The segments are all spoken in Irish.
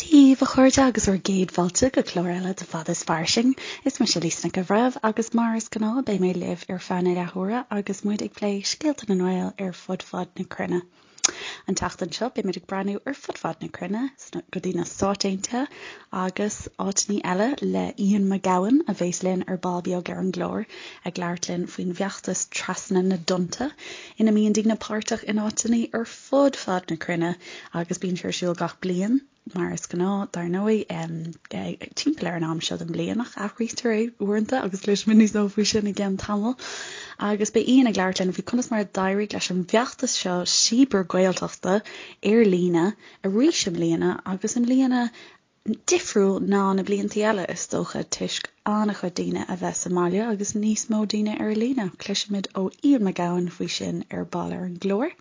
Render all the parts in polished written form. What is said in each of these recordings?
Dia daoibh a chairde agus bhur gcéad fáilte go clár eile de Fada is Fairsing. Is mise Lisa Nic an Bhreithimh agus mar is gnáth beidh mé libh ar feadh na leathuaire agus muid ag plé scéalta na nGael ar fud fad na cruinne. An tseachtain seo beimid ag breathnú ar fud fad na cruinne go dtí na Stáit Aontaithe agus áiteanna eile le Ian McGowan a bheas linn ar ball beag ar an gclár ag labhairt linn faoin bhfeachtas Trasna na dTonnta ina mbíonn daoine páirteach in áiteanna ar fud fad na cruinne agus bíonn sé ar siúl gach bliain. Mar is gnáth, dar ndóigh, timpeall ar an am seo den bhliain, ach athraítear é uaireanta agus cloisfimid níos mó faoi sin i gceann tamaill. Agus beidh Ian ag labhairt linn faoi conas mar a d'éirigh leis an bhfeachtas seo cibear-Ghaeltachta ar líne arís i mbliana agus i mbliana difriúil ná na blianta eile, is dócha, toisc an-chuid daoine a bheith sa mbaile agus níos mó daoine ar líne. Cloisfimid ó Ian McGowan faoi sin ar ball ar an gclár.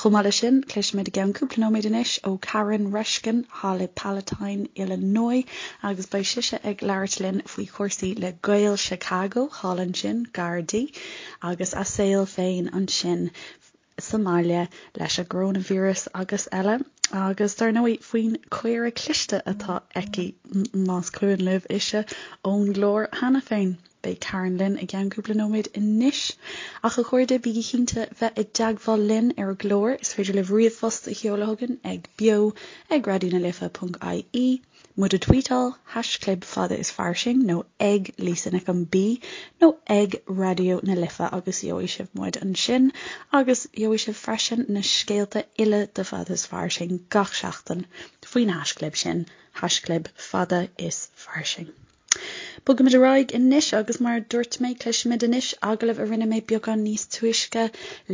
Chomh maith leis sin, cloisfimid i gceann cúpla nóiméad anois ó Karen Reshkin thall i Palatine, Illinois, agus beidh sise ag labhairt linn faoi chúrsaí le Gaeil Chicago thall ansin, gar di, agus a saol féin ansin sa mbaile leis an gcoróinvíreas agus eile, agus dar ndóigh faoin caora cliste atá aici, más cuimhin libh ise ón gclár cheana féin. Beidh Karen linn i gceann cúpla nóiméad anois. Ach a chairde, bígí cinnte bheith i dteagmháil linn ar an gclár. Is féidir libh ríomhphost a sheoladh chugainn ag beo ag raidionalife.ie, muid a tweetáil, haischlib fada is fairsing nó ag Lisa Nic an B nó ag Raidió na Life agus gheobhaidh sibh muid ansin agus gheobhaidh sibh freisin na scéalta uile de Fada is Fairsing gach seachtain faoin haischlib sin, haischlib fada is fairsing. Bogaimid ar aghaidh anois agus mar a dúirt mé, cloisfimid anois agallamh a rinne mé beagán níos túisce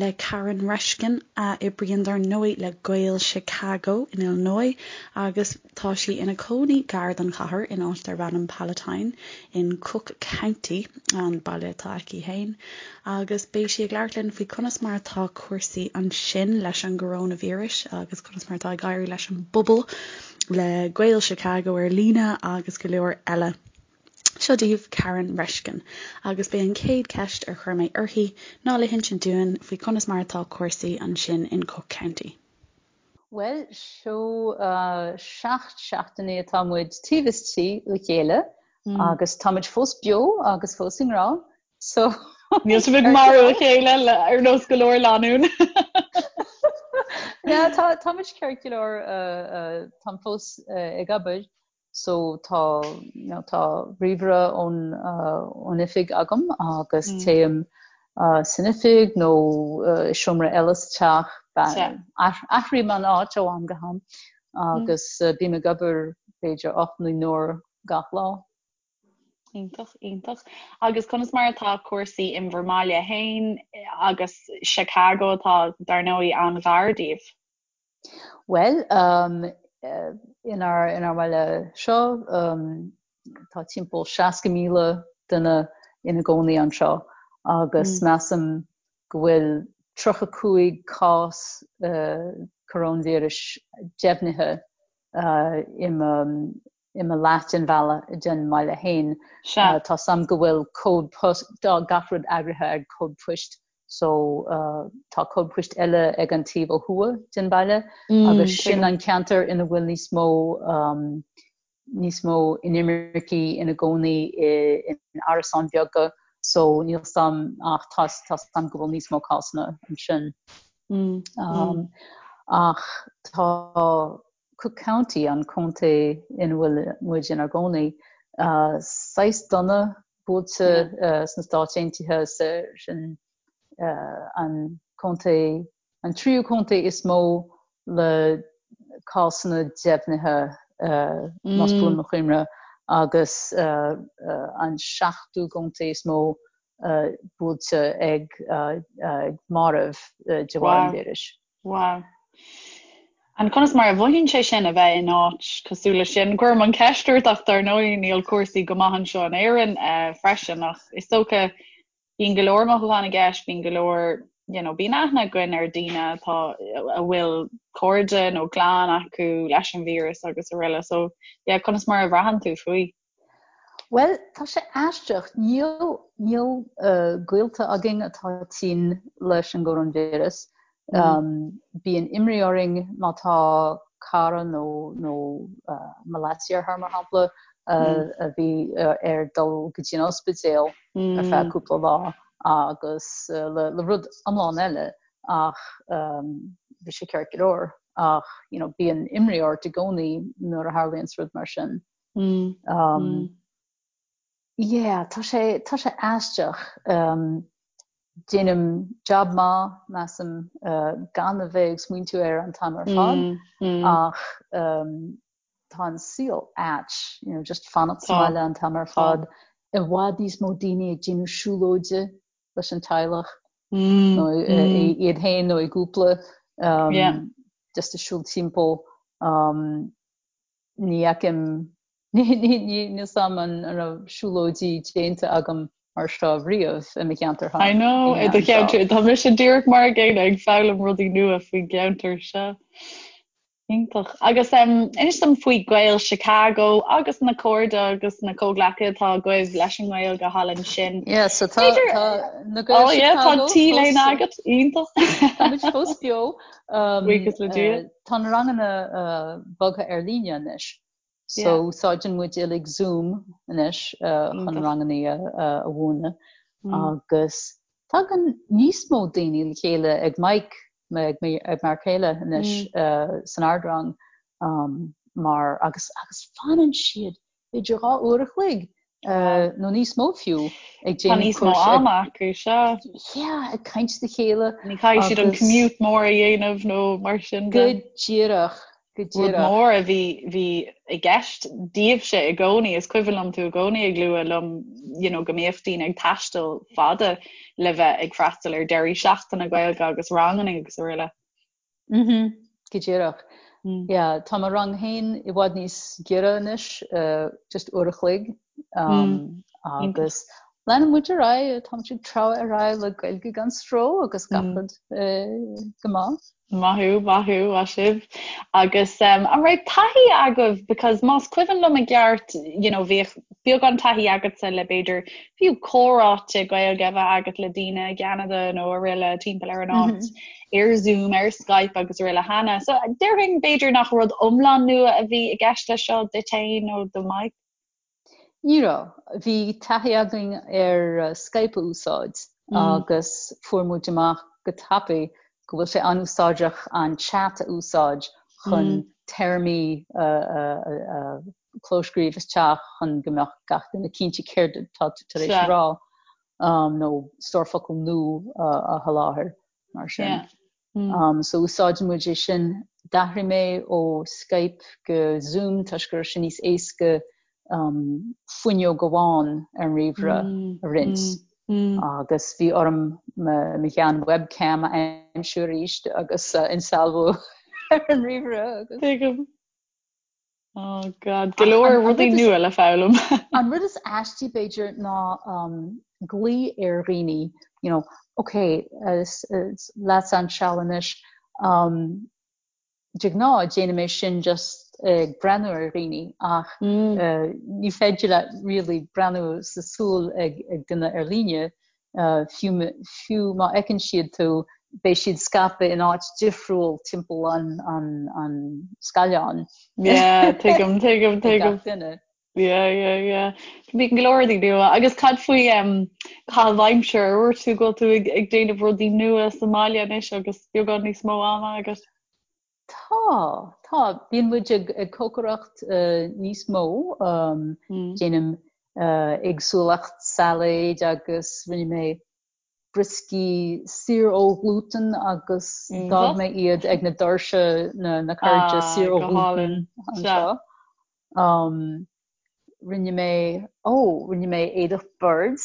le Karen Reshkin, a oibríonn dar ndóigh le Gaeil Chicago in Illinois agus tá sí ina cónaí gar don chathair in áit darb ainm Palatine in Cook County, an baile atá aici féin. Agus beidh sí ag labhairt linn faoi conas mar atá cúrsaí ansin leis an gcoróinvíreas agus conas mar atá ag éirí leis an bpobal. le Gaeil Chicago ar líne agus go leor eile. Seo daoibh Karen Reshkin agus b'é an chéad cheist ar chuir mé uirthi ná le hinsint dúinn faoi conas mar atá cúrsaí ansin in Cook County. Bhuel, seo 7 seachtainí atá muid taobh istigh le chéile agus táimid fós beo agus fós i ngrá So Níl sibh ag marú a chéile ar nós go leor lánún. Yeah, tá tá muid ceart go leor táim fós ag obair so tá you know, tá ríomhaire ón ón oifig agam agus téim san oifig nó i seomra eile sa teach athraím an áit ó am go ham agus bím ag obair b'fhéidir 8 nó 9 n-uair gach lá. Iontach, iontach. Agus conas mar atá cúrsaí in bhur mbaile féin agus Chicago atá, dar ndóigh, an-ghar daoibh? Bhuel, um, inár, inár mbaile seo, um, tá timpeall 60,000 duine ina gcónaí anseo agus mm. measaim go bhfuil 35 cás uh, coróinvíris deimhnithe uh, i mo i mo leath den bhaile den mbaile féin. Sea. Tá 's a'm go bhfuil cód post, tá gach rud eagraithe ag cód poist so tá cód poist eile ag an taobh ó thuaidh den bhaile agus sin an ceantar ina bhfuil níos mó níos mó inimircigh ina gcónaí in árasáin bheaga so níl 's a'm ach tá tá 's a'm go bhfuil níos mó cásanna ansin. Ach tá Cook County, an contae ina bhfuil muid inár gcónaí, saghas dona buailte sna Stáit Aontaithe, sin an contae, an tríú contae is mó le cásanna deimhnithe, más buan mo chuimhne, agus an seachtú contae is mó buailte ag mairbh de bharr an víris. Wow. And conas mar a mhothaíonn sé sin a bheith in áit cosúil leis sin? Cuirim an cheist ort ach dar ndóigh níl cúrsaí go maith anseo in Éirinn eh, freisin ach is dócha bíonn go leor mothúchán i gceist, bíonn go leor you know, bíonn aithne againn ar daoine atá a bhfuil cairde nó clann acu leis an víreas agus araile. So yeah, conas mar a bhraitheann tú faoi? Bhuel, tá sé aisteach. Níl, níl gaolta againn atá tinn leis an gcoróinvíreas. Bíonn imní orainn má tá. cara nó nó mo leasdeartháir mar shampla a bhí air dul go dtí an ospidéal ar feadh cúpla lá agus le le rud iomlán eile ach bhí sé ceart go leor ach you know bíonn imní ort i gcónaí nuair a tharlaíonn rud mar sin. Yeah, tá sé, tá sé aisteach. Déanaim jab maith, measaim, gan a bheith ag smaointiú air an t-am ar fad ach tá an saol ait, you know, just fanacht sa mbaile an t-am ar fad. I bhfad níos mó daoine ag déanamh siúlóide leis an teaghlach nó iad féin nó i gcúpla, just ag siúl timpeall. Ní fheicim, níl 's a'm an raibh siúlóidí déanta agam mar seo riamh i mo cheantar I know, i do cheantar, tá mise díreach mar a gcéanna ag foghlaim rudaí nua faoin gceantar seo. Iontach. Agus inis dom faoi Gaeil Chicago agus na cairde agus na comhghleacaithe atá agaibh leis an nGaeilge thall ansin. Yeah, so tá, tá na Gaeil oh, yeah, Chicago tá T-léine agat, iontach. Tá muid fós beo. Buíochas le Dia. Tá na ranganna bogtha ar líne anois. So úsáideann muid uilig Zoom anois chun ranganna a mhúineadh agus tagann níos mó daoine le chéile ag Mike, ag m'fhear céile anois san ardrang mar agus agus fanann siad b'fhéidir 2 uair a chloig nó níos mó fiú ag déanamh Tá níos mó ama acu, sea. Yeah, ag caint le chéile. Ní chaithfidh siad an commute mór a dhéanamh nó mar sin de. Go díreach, go díreach. Rud mór a bhí, bhí i gceist daoibhse i gcónaí, is cuimhin liom tú i gcónaí ag lua liom you know, go mbíodh daoine ag taisteal fada le bheith ag freastal ar deirí seachtaine Gaeilge agus ranganna agus araile. Mhm, go díreach. Yeah, tá mo rang féin i bhfad níos giorra anois, just uair a chloig, agus leanann muid ar aghaidh, tá muid ag treabhadh ar aghaidh le Gaeilge gan stró agus gach rud go maith. Maith thú, maith thú, maith sibh. Agus an raibh taithí agaibh, because más cuimhin liom i gceart, you know, bhíodh beagán taithí agatsa le b'fhéidir fiú comhráite Gaeilge a bheith agat le daoine i gCeanada nó araile timpeall ar an áit. ar Zoom, ar Skype agus araile cheana. So déarfainn b'fhéidir nach rud iomlán nua a bhí i gceist leis seo duit féin nó do Mike? Ní raibh. Bhí taithí againn ar Skype a úsáid agus fuair muid amach go tapaidh go bhfuil sé an-úsáideach an chat a úsáid chun téarmaí a clóscríobh isteach chun go mbeadh gach duine cinnte céard atá tú tar éis a rá. nó stór focal nua a sholáthar mar sin. So úsáideann muid é sin. D'athraigh mé ó Skype go Zoom toisc go raibh sé níos éasca fuinneog amháin ar an ríomhaire a roinnt. Agus bhí orm mo shean webcam a aimsiú arís agus a insealbhú ar an ríomhaire agus. Tuigim. Oh God, go leor rudaí nua le foghlaim. An rud is aistí b'fhéidir ná glao ar dhaoine, you know, ok, leatsa an seal anois, de ghnáth déanaim é sin just ag breathnú ar dhaoine ach ní féidir leat really breathnú sa súil ag duine ar líne Fiú fiú má fheiceann siad tú, beidh siad scaipthe in áit difriúil timpeall an an an scáileáin. Yeah, tuigim, tuigim, tuigim. Gach duine. Yeah, yeah, yeah. Bíonn go leor rudaí nua. Agus cad faoi um, caitheamh aimsire? Ar dhúirt tú go bhfuil tú ag, ag déanamh rudaí nua sa mbaile anois agus beagán níos mó ama agat? Tá, tá. Bíonn muid ag ag cócaireacht níos mó. Déanaim éagsúlacht sailéid agus rinne mé brioscaí saor ó ghlútan agus d'fhág mé iad ag na doirse na na cairde saor ó ghlútan anseo. Rinne mé, ó, rinne mé éadach boird.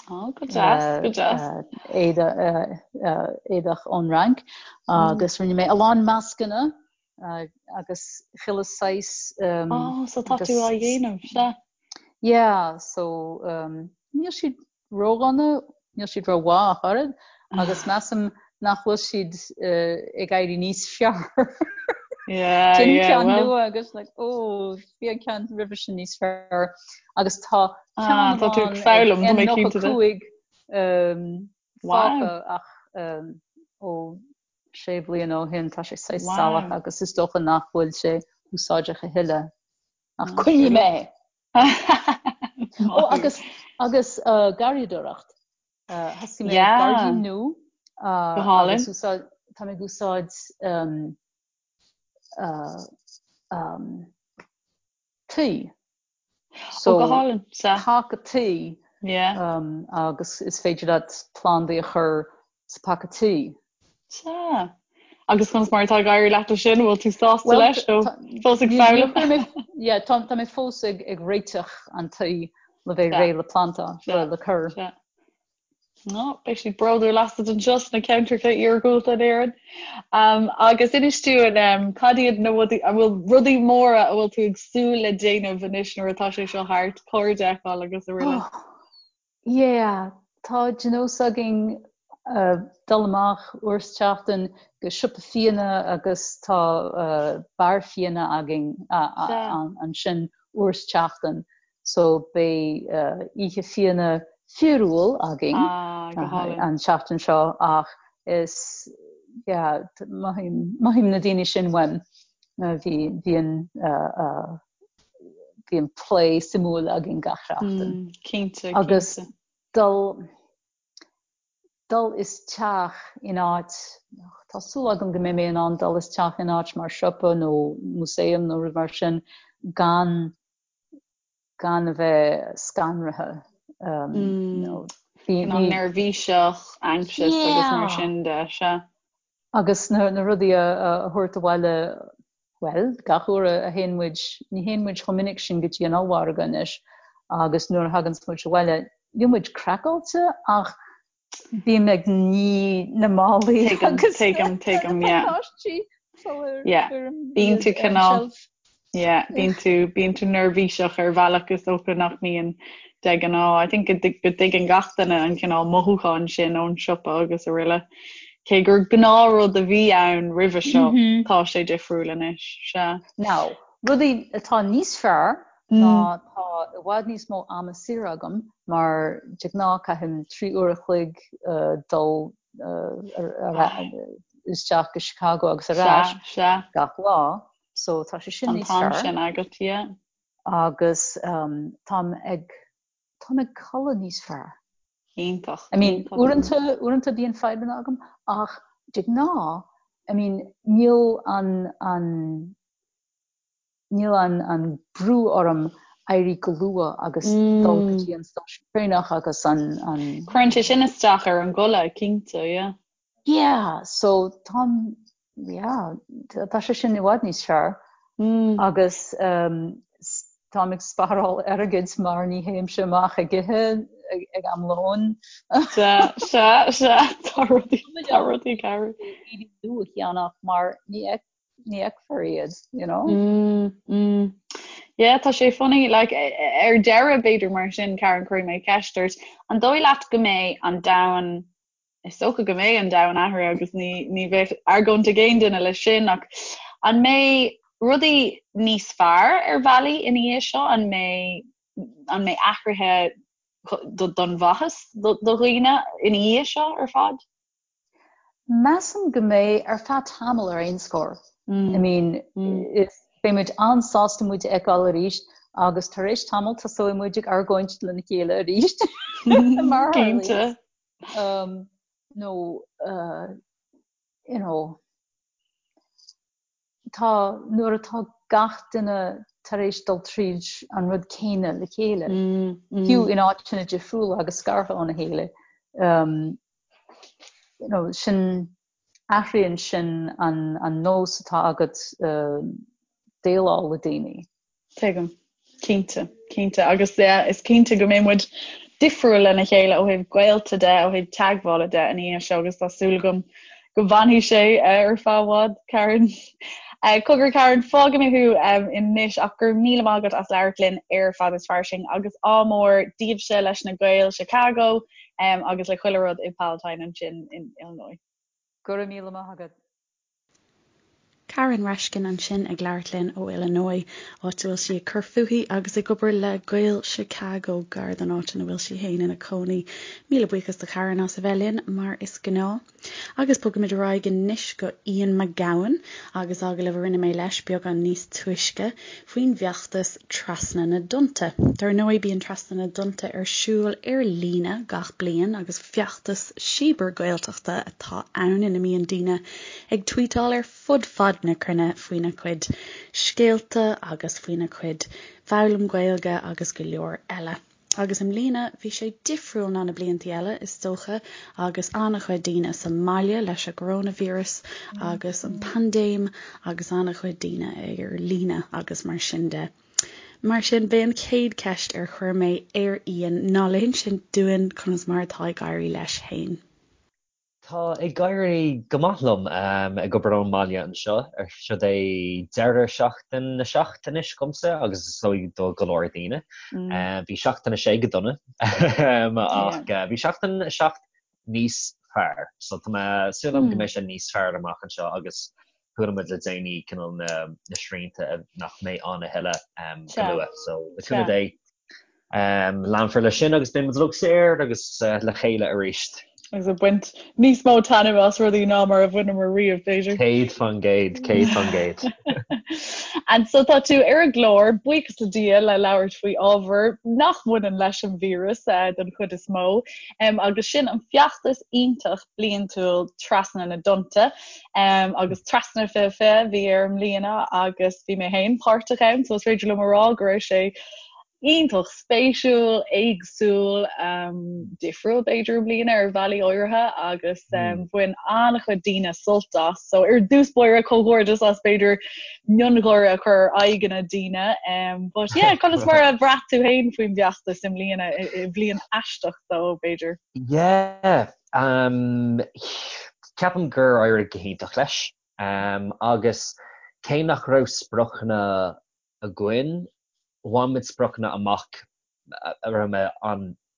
Ó, go deas, go deas. Éadach ón Fhrainc agus rinne mé a lán mascanna agus chuile saghas. Ó, so tá tú á dhéanamh, sea. Yeah, so níl siad ródhona, níl siad rómhaith ach oiread, agus measaim nach bhfuil siad ag éirí níos fearr. Yeah, Déanaim yeah, ceann well. nua agus like, oh, bhí an ceann roimhe sin níos fearr. Agus tá ceann ah, tá tú ag foghlaim, tá mé cinnte de. N95 um, fágtha ach um, ó. sé bhliana ó shin, tá sé saghas salach agus is dócha nach bhfuil sé úsáideach a thuilleadh. Ach coinneoidh mé é! Ó agus agus garraíodóireacht. Thosaigh mé gairdín nua. Go hálainn. Agus úsáid, tá mé ag úsáid tuí. So, go hálainn. Paca tuí. Yeah. Agus is féidir leat plandaí a chur sa paca tuí. Sea. Agus conas mar atá ag éirí leat leis sin? Bhfuil tú sásta leis nó fós ag foghlaim? Yeah, tá mé fós ag réiteach an tuí le bheith réidh le planta, le cur. Sea. No, beidh siad bródúil asat anseo sna ceantracha iargúlta in Éirinn. Agus inis dúinn, cad iad na rudaí, an bhfuil rudaí móra a bhfuil tú ag súil le déanamh anois nuair atá sé seo thart, cairde a fheiceáil agus araile? Oh, yeah, tá de nós againn dul amach uair sa tseachtain go siopa fíona agus tá beár fíona againn ansin uair sa tseachtain. So beidh oíche fíona fíorúil againn an tseachtain seo ach is yeah mothaím mothaím na daoine sin uaim. Bhí bíonn bíonn plé suimiúil againn gach seachtain. Cinnte, Agus dul dul isteach in áit, tá súil agam go mbeidh mé in ann dul isteach in áit mar siopa nó músaem nó rud mar sin gan gan a bheith scanraithe. Cineál neirbhíseach, anxious agus mar sin de, sea. Agus na rudaí a thabhairt abhaile, bhuel, gach uair a théann muid, ní théann muid chomh minic sin go dtí an ollmhargadh anois, agus nuair a thaganns muid abhaile, níl muid craiceáilte ach Bím ag ní na málaí agus tuigim, tuigim, yeah. pacáistí sular Yeah, cuirim bíonn iad tú ar an cineál, tseilf. yeah, bíonn tú, bíonn tú neirbhíseach ar bhealach is dócha nach mbíonn de ghnáth. I think go dtig- go dtuigeann gach duine an cineál mothúchán sin ón siopa agus araile. Cé gur gnáthrud a bhí ann roimhe seo, tá sé difriúil anois, sea. Now, rudaí atá níos fearr ná tá i bhfad níos mó ama saor agam mar de ghnáth caithim 3 uair a chloig dul isteach go Chicago agus ar ais gach lá so tá sé sin níos fearr. An t-am sin agat, yeah. Agus táim ag táim ag codladh níos fearr. Iontach. I mean uaireanta uaireanta bíonn fadhbanna agam ach de ghnáth I mean níl an an Níl an brú orm éirí go luath agus dul go dtí an stáisiún traenach agus an. Cuireann sé sin isteach ar an gcodladh, cinnte, yeah. Yeah, so táim, yeah, tá sé sin i bhfad níos fearr. Agus táim ag spáráil airgid mar ní théimse amach ag ithe ag am lóin. Sea, sea, sea, tá rudaí, tá rudaí ag athrú. Éadaí nua a cheannach mar ní ní fheicfear iad, you know. Mm, mm. Yeah, tá sé funny, like, ar deireadh b'fhéidir mar sin, Karen, cuirfidh mé ceist ort, an dóigh leat go mbeidh an domhan, is dócha go mbeidh an domhan athraithe agus ní, ní bheadh argóint ag aon duine leis sin, ach an mbeidh rudaí níos fearr ar bhealaí ina dhiaidh seo? An mbeidh, an mbeidh athruithe don mhaitheas do dhaoine ina dhiaidh seo ar fad? Measaim go mbeidh, ar feadh tamaill ar aon scór. I mean, is, beidh muid an-sásta muid a fheiceáil arís agus tar éis tamaill tosóidh muid ag argóint lena chéile arís, mar a tharlaíonn. Nó, you know, tá, nuair atá gach duine tar éis dul tríd an rud céanna le chéile, fiú in áiteanna difriúla agus scartha óna chéile, you know, sin, athraíonn sin an, an nós atá agat déileáil le daoine. Tuigim. Cinnte, cinnte. Agus yeah, is cinnte go mbeidh muid difriúil lena chéile ó thaobh gaolta de, ó thaobh teagmhála de ina dhiaidh seo agus tá súil agam go bhfanfaidh sé ar feadh i bhfad, Karen. Cogar Karen, fágfaidh mé thú anois ach go raibh míle maith agat as labhairt linn ar Fad is Fairsing agus ádh mór daoibhse leis na Gaeil Chicago agus le chuile rud i Palatine ansin in Illinois. Go raibh míle maith agat. Karen Reshkin ansin ag labhairt linn ó Illinois, áit a bhfuil sí ag cur fúithi agus ag obair le Gaeil Chicago, gar don áit ina bhfuil sí féin ina cónaí. Míle buíochas do Karen as a bheith linn, mar is gnáth. Agus bogfaimid ar aghaidh anois go Ian McGowan agus agallamh a rinne mé leis beagán níos túisce faoin bhfeachtas Trasna na dTonnta. Dar ndóigh bíonn Trasna na dTonnta ar siúl ar líne gach bliain agus feachtas cibear-Gaeltachta atá ann ina mbíonn daoine ag tweetáil ar fud fad na cruinne faoina gcuid scéalta agus faoina gcuid foghlaim Gaeilge agus go leor eile. Agus i mbliana bhí sé difriúil ná na bliantaí eile, is dócha, agus an-chuid daoine sa mbaile leis an gcoróinvíreas agus an paindéim agus an-chuid daoine ar líne agus mar sin de. Mar sin, b'é an chéad cheist ar chuir mé ar Ian ná le hinsint dúinn conas mar atá ag éirí leis féin. Tá ag éirí go maith liom ag obair ón mbaile anseo. Seo é deireadh seachtain a 7 anois agamsa agus is dóigh do go leor daoine. Bhí seachtain a 6 go dona ach bhí seachtain a 7 níos fearr. So tá mé súil agam go mbeidh sé níos fearr amach anseo agus chuala muid le déanaí cineál na srianta nach mbeidh ann a thuilleadh go luath. So le cúnamh Dé Leanfar leis sin agus beidh muid uilig saor agus le chéile arís. Agus ag baint níos mó taitneamh as rudaí ná mar a bhaineamar riamh, b'fhéidir. 100%, 100%. And so tá tú ar an gclár, buíochas le Dia, le labhairt faoi ábhar nach mbaineann leis an víreas den chuid is mó, agus sin an feachtas iontach bliantúil Trasna na dTonnta. Agus Trasna 2020 a bhí air i mbliana agus bhí mé féin páirteach ann, so is féidir liom a rá go raibh sé iontach spéisiúil, éagsúil, difriúil b'fhéidir i mbliana ar bhealaí áirithe agus bhain an-chuid daoine sult as. So ar dtús báire comhghairdeas as b'fhéidir miongháire a chur ar aghaidheanna daoine. But yeah, conas mar a bhraith tú féin faoin bhfeachtas i mbliana, i bhliain aisteach dó b'fhéidir? Yeah, ceapaim gur éirigh go hiontach leis. Agus cé nach raibh spriocanna againn, bhain muid spriocanna amach a raibh mé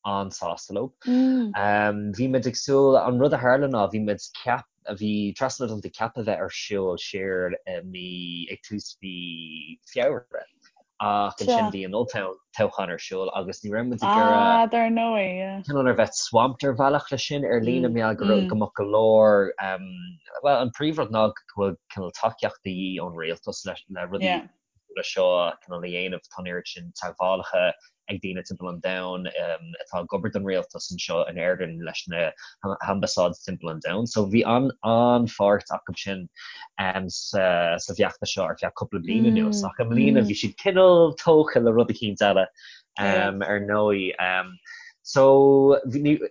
an-sásta leo. Bhí muid ag súil, an rud a tharla ná bhí muid ceap, bhí Trasna na dTonnta ceaptha bheith ar siúl siar i mí, ag tús mhí Feabhra ach ansin bhí an olltoghchán ar siúl agus ní raibh muid ag iarraidh Ah, dar ndóigh, yeah. cineál ar bheith swamped ar bhealach leis sin ar líne mar gheall go raibh, go mbeadh go leor, bhuel an príomhrud ná go bhfuil cineál tacaíocht de dhíth ón rialtas le le rudaí leis seo cineál a dhéanamh. Tá an oiread sin teagmhálacha ag daoine timpeall an domhain atá ag obair don rialtas anseo in Éirinn leis na hambasáid timpeall an domhain. So bhí an-pháirt acu sin sa bhfeachtas seo ar feadh cúpla bliain anuas. Ach i mbliana bhí siad cineál tógtha le rud eicínt eile ar ndóigh. So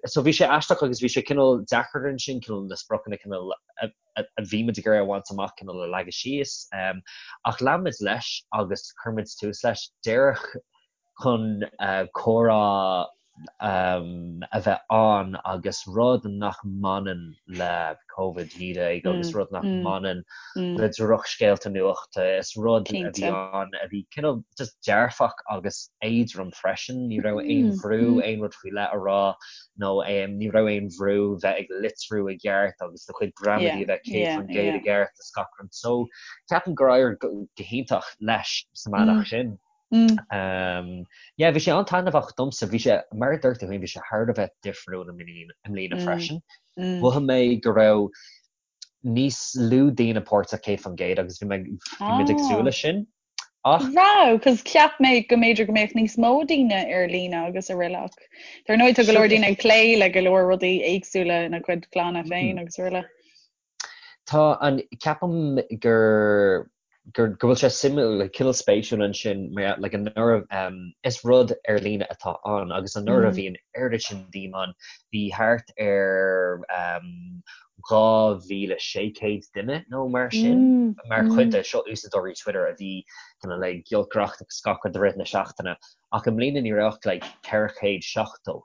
so bhí sé aisteach agus bhí sé cineál deacair ansin cineál na spriocanna cineál a a bhí muid ag iarraidh a bhaint amach cineál a leagadh síos. Ach lean muid leis agus chuir muid tús leis díreach chun comhrá a bheith ann agus rud nach mbaineann le Covid-19 agus rud nach mbaineann le drochscéalta nuachta. Is rud a bhí ann a bhí cineál just dearfach agus éadrom freisin. Ní raibh aon bhrú aon rud faoi leith a rá nó ní raibh aon bhrú bheith ag litriú i gceart agus do chuid gramadaí a bheith 100% i gceart is gach rud. So ceapaim gur éirigh go hiontach leis sa mbealach sin. Yeah, bhí sé an-taitneamhach domsa. Bhí sé, mar a dúirt tú féin, bhí sé thar a bheith difriúil i mbliana freisin. Mhothaigh mé go raibh níos lú daoine páirteach 100% agus bhí mé, bhí muid ag súil leis sin. Ach. Raibh, cos cheap mé go mb'fhéidir go mbeadh níos mó daoine ar líne agus araile ach dar ndóigh tá go leor daoine ag plé le go leor rudaí éagsúla ina gcuid clanna féin agus araile. Tá an, ceapaim gur, gur, go bhfuil sé suimiúil, like, cineál spéisiúil ansin mar like anuraidh, um, is rud ar líne atá ann agus anuraidh bhí an oiread sin daoine ann, bhí thart ar, um, 2,600 duine nó mar sin mar chuid de seo úsáideoirí Twitter a bhí cineál ag giolcaireacht agus gach rud i rith na seachtaine ach i mbliana ní raibh ach like 470.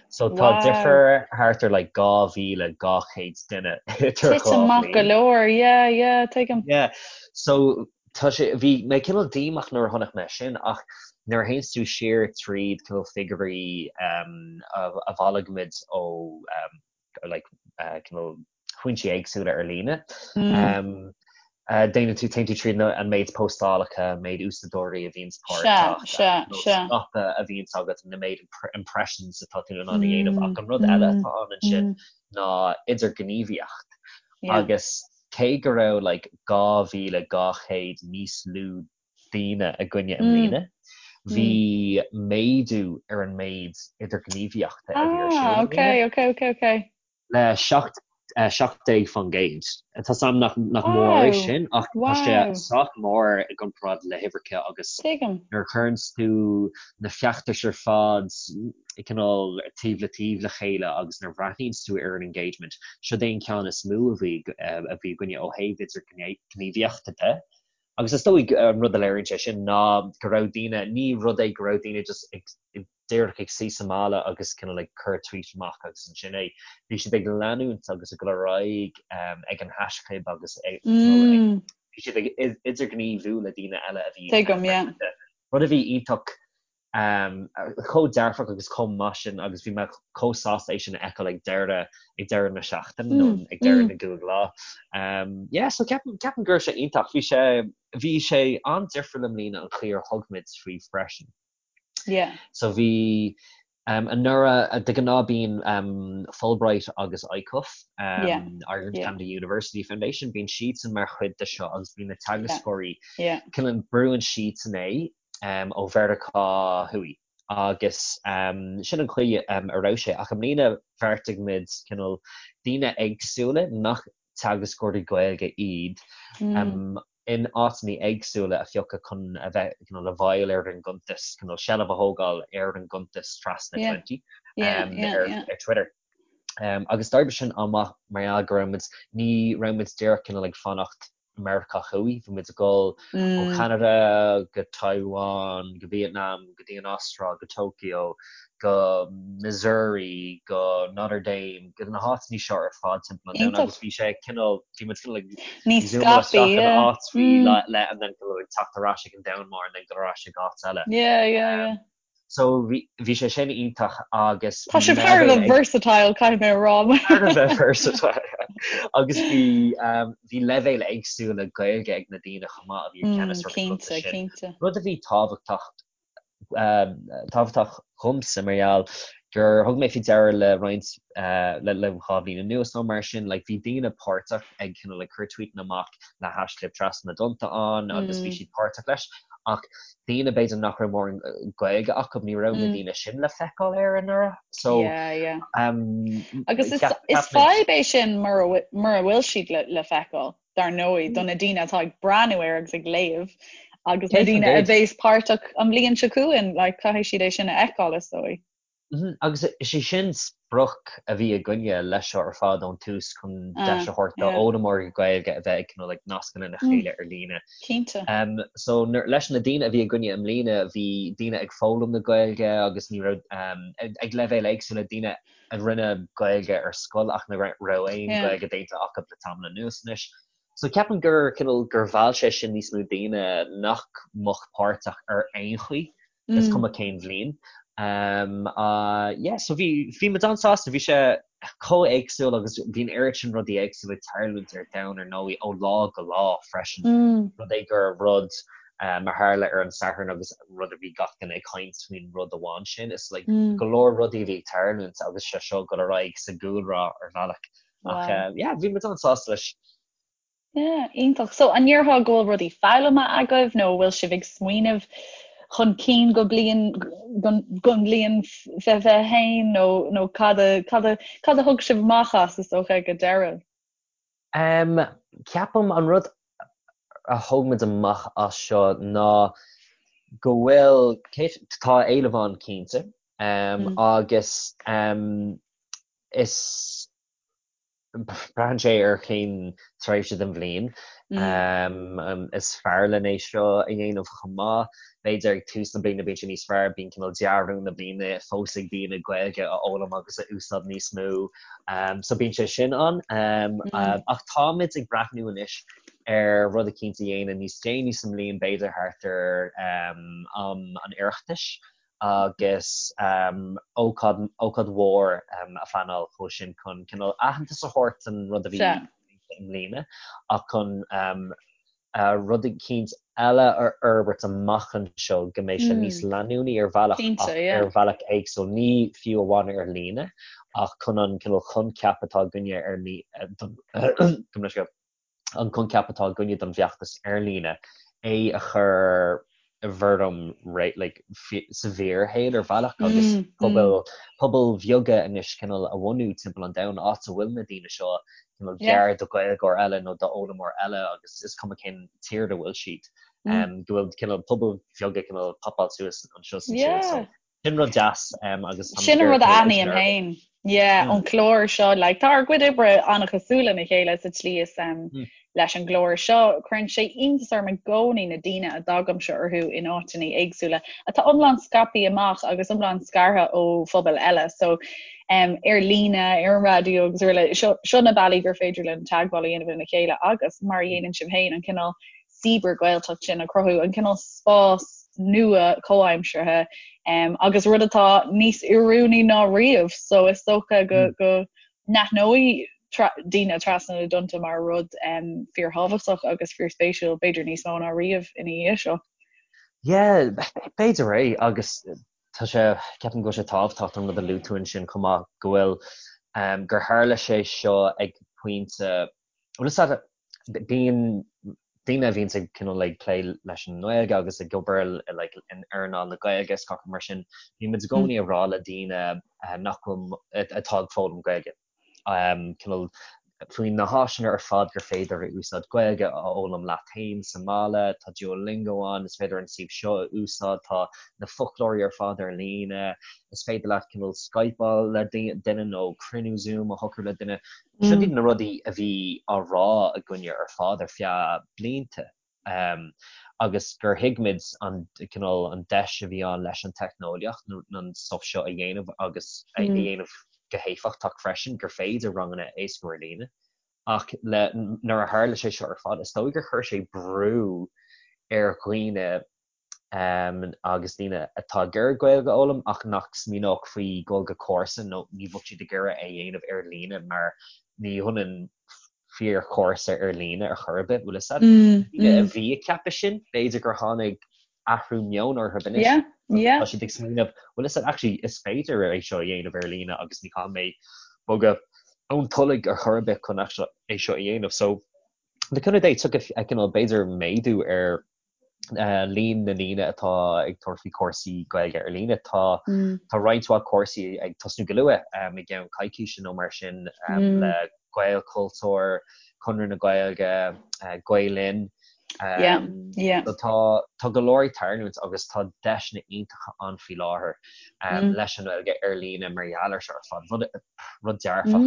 So tá difear thart ar like 2,200 duine idir dhá bhliain. Go leor, yeah, yeah, tuigim. Yeah, so tá sé, bhí mé cineál díomách nuair a chonaic mé sin ach nuair a théanns tú siar tríd cineál figiúirí a bhailigh muid ó like cineál foinsí éagsúla ar líne. Déanann tú, téann tú tríd an méid póstálacha, an méid úsáideoirí a bhíonns páirteach, scaipeadh a bhíonns agat, na méid impressions atá tú in ann a dhéanamh. Ach an rud eile atá ann ansin ná idirghníomhaíocht. Agus cé go raibh like 2,200 níos lú daoine againne i mbliana, bhí méadú ar an méid idirghníomhaíochta a bhí ar siúl i mbliana. le 17%. Tá 's a'm nach mór é sin ach tá sé sách mór i gcomparáid le huimhreacha agus nuair a chuireanns tú na feachtais ar fad cineál taobh le taobh le chéile agus nuair a bhreathnaíonns tú ar an engagement, siod é an ceann is mó a bhí a bhí againne ó thaobh idirghníomhaíochta de. Agus is dóigh an rud a léiríonn sé sin ná go raibh daoine, ní rud é go raibh daoine just ag díreach ag suí sa mbaile agus cineál ag cur tweet amach agus ansin é. Bhí siad ag leanúint agus ag dul ar aghaidh ag an haischlib agus ag bhí siad ag idirghníomhú le daoine eile a bhí Tuigim, yeah. Rud a bhí iontach chomh dearfach agus chomh maith sin agus bhí mé chomh sásta é sin a fheiceáil ag deireadh ag deireadh na seachtaine nó ag deireadh na gcúig lá. Yeah, so ceapaim ceapaim go raibh sé iontach. Bhí sé bhí sé an-difriúil i mbliana an chaoi ar thug muid faoi freisin. Yeah. So bhí um, anuraidh de ghnáth bíonn um, Fulbright agus ICUF um, yeah. Ireland yeah. Canada University Foundation bíonn siadsan mar chuid de seo agus bíonn na teagascóirí yeah. yeah. brúann siadsan é ó Mheiriceá Thuaidh agus sin an chaoi a raibh sé. Ach i mbliana bheartaigh muid cineál daoine éagsúla nach teagascóirí Gaeilge iad in áiteanna éagsúla a phiocadh chun a bheith cineál i bhfeighil ar an gcuntas, cineál seilbh a thógáil ar an gcuntas Trasna Twenty ar Twitter. Agus d'oibrigh sin an-mhaith mar gheall go raibh muid, ní raibh muid díreach cineál ag fanacht Meiriceá Thuaidh. Bhí muid ag dul ó Cheanada go Taiwan, go Vietnam, go dtí an Astráil, go Tokyo, go Missouri, go Notre Dame, go na háiteanna seo ar fad timpeall an domhain agus bhí sé cineál, bhí muid cineál ag zoomáil isteach in áit faoi leith and then cineál ag teacht ar ais ag an domhan mór and then dul ar ais ag áit eile. Yeah, yeah, yeah. So bhí bhí sé sin iontach agus Tá sibh thar a bheith versatile caithfidh mé a rá. Thar a bheith versatile agus bhí bhí leibhéil éagsúla Gaeilge ag na daoine chomh maith a bhí i gceannas ar an Cinnte, gcuntas sin. cinnte. Rud a bhí tábhachtach tábhachtach dhomsa mar gheall gur thug mé faoi deara le roinnt le le 2 bhliain anuas nó mar sin like bhí daoine páirteach ag cineál ag cur tweetanna amach le haischlib Trasna na dTonnta ann agus bhí siad páirteach leis ach daoine b'fhéidir nach raibh mórán Gaeilge acu, ní raibh na daoine sin le feiceáil air anuraidh. So Yeah, yeah. Agus is is fadhb é sin mura mura bhfuil siad le le feiceáil, dar ndóigh, do na daoine atá ag breathnú air agus ag léamh agus na daoine a bheas páirteach an bhliain seo chugainn, like, caithfidh siad é sin a fheiceáil, is dóigh. Agus is é sin sprioc a bhí againne leis seo ar fad ón tús chun deis a thabhairt d'fhoghlaimeoirí Gaeilge a bheith ag cineál ag nascadh lena chéile ar líne. Cinnte. So leis na daoine a bhí againne i mbliana bhí daoine ag foghlaim na Gaeilge agus ní raibh ag leibhéil éagsúla, daoine a rinne Gaeilge ar scoil ach nach raibh aon Ghaeilge déanta acu le tamall anuas anois. So ceapaim gur cineál gur mheall sé sin níos mó daoine nach mbeadh páirteach ar aon chaoi, is cuma cén bhliain. Um, uh, yeah, so bhí, bhí muid an-sásta, bhí sé chomh éagsúil agus bhí an oiread sin rudaí éagsúla ag tarlúint ar domhan ar ndóigh ó lá go lá freisin. Mm. Rud é gur rud um, a tharla ar an Satharn agus rud a bhí gach duine ag caint faoin rud amháin sin. Is like, Mm. go leor rudaí a bhí ag tarlúint agus sé seo ag dul ar aghaidh sa gcúlra ar bhealach. Ach Wow. yeah, bhí muid an-sásta leis. Yeah, iontach. So an ndéarfá go bhfuil rudaí foghlamtha agaibh nó bhfuil sibh ag smaoineamh chun cinn go bliain don bhliain 2021 nó nó cad a cad a cad a thug sibh amach as is dócha ag an deireadh? Um, ceapaim an rud a thóg muid amach as seo ná go bhfuil tá éileamh ann cinnte um, agus um, Is braitheann sé ar cén tréimhse den bhliain is fearr linn é seo a dhéanamh chomh maith. B'fhéidir ag tús na bliana bíonn sé níos fearr, bíonn cineál dea-rún na bliana fós ag daoine Gaeilge a fhoghlaim agus a úsáid níos mó. So bíonn sé sin ann. Ach táimid ag breathnú anois ar rud eicínt a dhéanamh níos déanaí sa mbliain, b'fhéidir thart ar am an Oireachtais. agus ócáid, ócáid mhór a phleanáil chomh sin chun cineál aitheantas a thabhairt don rud a bhí i mbliana ach chun. rud eicínt eile a fhorbairt amach anseo go mbeidh sé níos leanúnaí ar bhealach ach ar bhealach éagsúil, ní fiú amháin ar líne ach chun an cineál coincheap atá againne ar don an coincheap atá againne don bhfeachtas ar líne, é a chur i bhfoirm like sa bhfíorshaol ar bhealach agus pobail pobail bheaga anois cineál a bhunú timpeall an domhain áit a bhfuil na daoine seo cineál gar do Ghaeilgeoir eile nó d'fhoghlaimeoir eile agus is cuma cén tír a bhfuil siad go bhfuil cineál pobail bheaga cineál popáil suas anseo is ansiúd so Sin rud deas agus Sin an rud a aithním féin. Yeah, ón chlár seo, like, tá ár gcuid oibre an-chosúil lena chéile sa tslí is um, mm. leis an gclár seo, cuireann sé iontas orm i gcónaí na daoine a dtagaimse orthu in áiteanna éagsúla atá iomlán scaipthe amach agus iomlán scartha ó phobail eile. So um, ar líne, ar an raidió agus araile, seo, seo na bealaí gur féidir linn teagmháil a dhéanamh lena chéile agus mar a dhéanann sibh féin an cineál cibear-Ghaeltacht sin a chruthú, an cineál spás nua comhaimseartha um, agus rud atá níos oiriúnaí ná riamh, so is dócha go, mm. go n-aithneoidh daoine trasna na dtonnta mar rud um, fíorthábhachtach agus fíorspéisiúil, b'fhéidir níos mó ná riamh ina dhiaidh seo. Yeah, b'fhéidir é agus tá sé, ceapaim go bhfuil sé tábhachtach an rud a luaigh tú ansin chomh maith go bhfuil um, gur tharla sé seo ag pointe Bhuel is ea, bíonn daoine a bhíonns ag cineál ag plé leis an nGaeilge agus ag obair like in earnáil na Gaeilge is gach rud mar sin, bíonn muid i gcónaí ag rá le daoine nach bhfuil, atá ag foghlaim Gaeilge, cineál faoi na háiseanna ar fad gur féidir a úsáid Gaeilge a fhoghlaim leat féin sa mbaile, tá Duolingo ann, is féidir an suíomh seo a úsáid, tá na foclóirí ar fad ar líne, is féidir leat cineál Skypeáil le duine nó cruinniú Zoom a shocrú le duine. Seo iad na rudaí a bhí á rá againne ar fad ar feadh blianta agus gur thuig muid an cineál an deis a bhí ann leis an teicneolaíocht an stuff seo a dhéanamh agus a dhéanamh go héifeachtach freisin, gur féidir ranganna a éascú ar líne. Ach le nuair a tharla sé seo ar fad, is dóigh gur chuir sé brú ar dhaoine agus daoine atá ag iarraidh Gaeilge a fhoghlaim ach nach smaoineodh faoi dhul go cúrsa nó ní bheadh siad ag iarraidh é a dhéanamh ar líne mar ní hionann fíorchúrsa ar líne ar chor ar bith, bhfuil fhios a'd. Daoine a bhí ag ceapadh sin, b'fhéidir gur tháinig athrú meoin orthu anois. Tá siad ag smaoineamh, bhfuil fhios a'd, actually is féidir é seo a dhéanamh ar líne agus ní chaithfidh mé bogadh ón Tulaigh ar chor ar bith chun é seo a dhéanamh. So, le cúnamh Dé, tiocfaidh cineál b'fhéidir méadú ar líon na ndaoine atá ag tabhairt faoi chúrsaí Gaeilge ar líne. Tá tá roinnt mhaith cúrsaí ag tosnú go luath i gceann coicíse nó mar sin le Gaelchultúr, Conradh na Gaeilge, Gael Linn. Tá tá go leor ag tarlúint agus tá deiseanna iontacha ann faoi láthair leis an nGaeilge ar líne mar gheall ar seo ar fad. Rud rud dearfach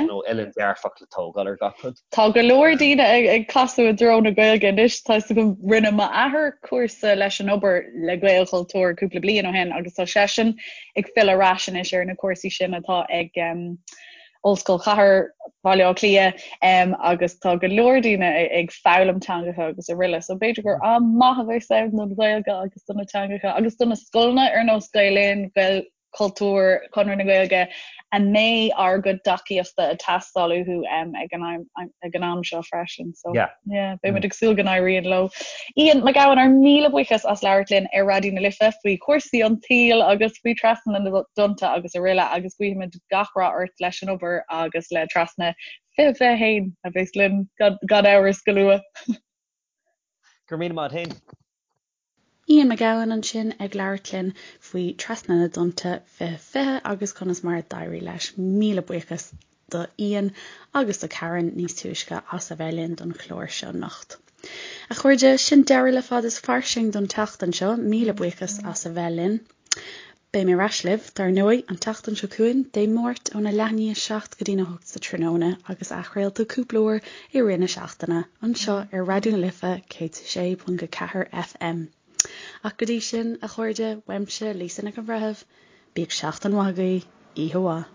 nó uillinn dearfach le tógáil ar gach rud. Tá go leor daoine ag casadh i dtreo na Gaeilge anois. Tá fhios agam rinne m'athair cúrsa leis an obair le Gaelchultúr cúpla bliain ó shin agus tá seisean ag filleadh ar ais anois ar na cúrsaí sin atá ag um, Ollscoil Chathair Bhaile Átha Cliath um, agus tá go leor daoine ag foghlaim teangacha agus araile. So b'fhéidir gur am maith a bheas ann don Ghaeilge agus do na teangacha agus do na scoileanna ar nós Gael Linn, Gael Cultúr, Conradh na Gaeilge, a mbeidh ár gcuid tacaíochta ag teastáil uathu ag an ag an am seo freisin. So yeah. Yeah, beidh muid ag súil go n-éiríonn leo. Ian Mac Gabhann, ár míle buíochas as labhairt linn ar Raidió na Life faoi chúrsaí an tsaoil agus faoi Trasna na dTonnta agus araile agus guímid gach rath ort leis an obair agus le Trasna 2021 a bheas linn gan amhras go luath. Go raibh míle maith agat féin. Ian Mac Gabhann ansin ag labhairt linn faoi Trasna na dTonnta 2020 agus conas mar a d'éirigh leis. Míle buíochas do Ian agus do Karen níos túisce as a bheith linn don chlár seo anocht. A chairde, sin deireadh le Fad is Fairsing don tseachtain seo. Míle buíochas as a bheith linn. Beidh mé ar ais libh, dar ndóigh, an tseachtain seo chugainn, Dé Máirt óna leath i ndiaidh 7 go dtína 8 sa tráthnóna agus athchraolta cúpla uair i rith na seachtaine, anseo ar Raidió na Life 106.4 FM. Ach go dtí sin, a chairde, uaimse, Lisa Nic an Bhreithimh, bíodh seachtain mhaith agaibh, oíche mhaith.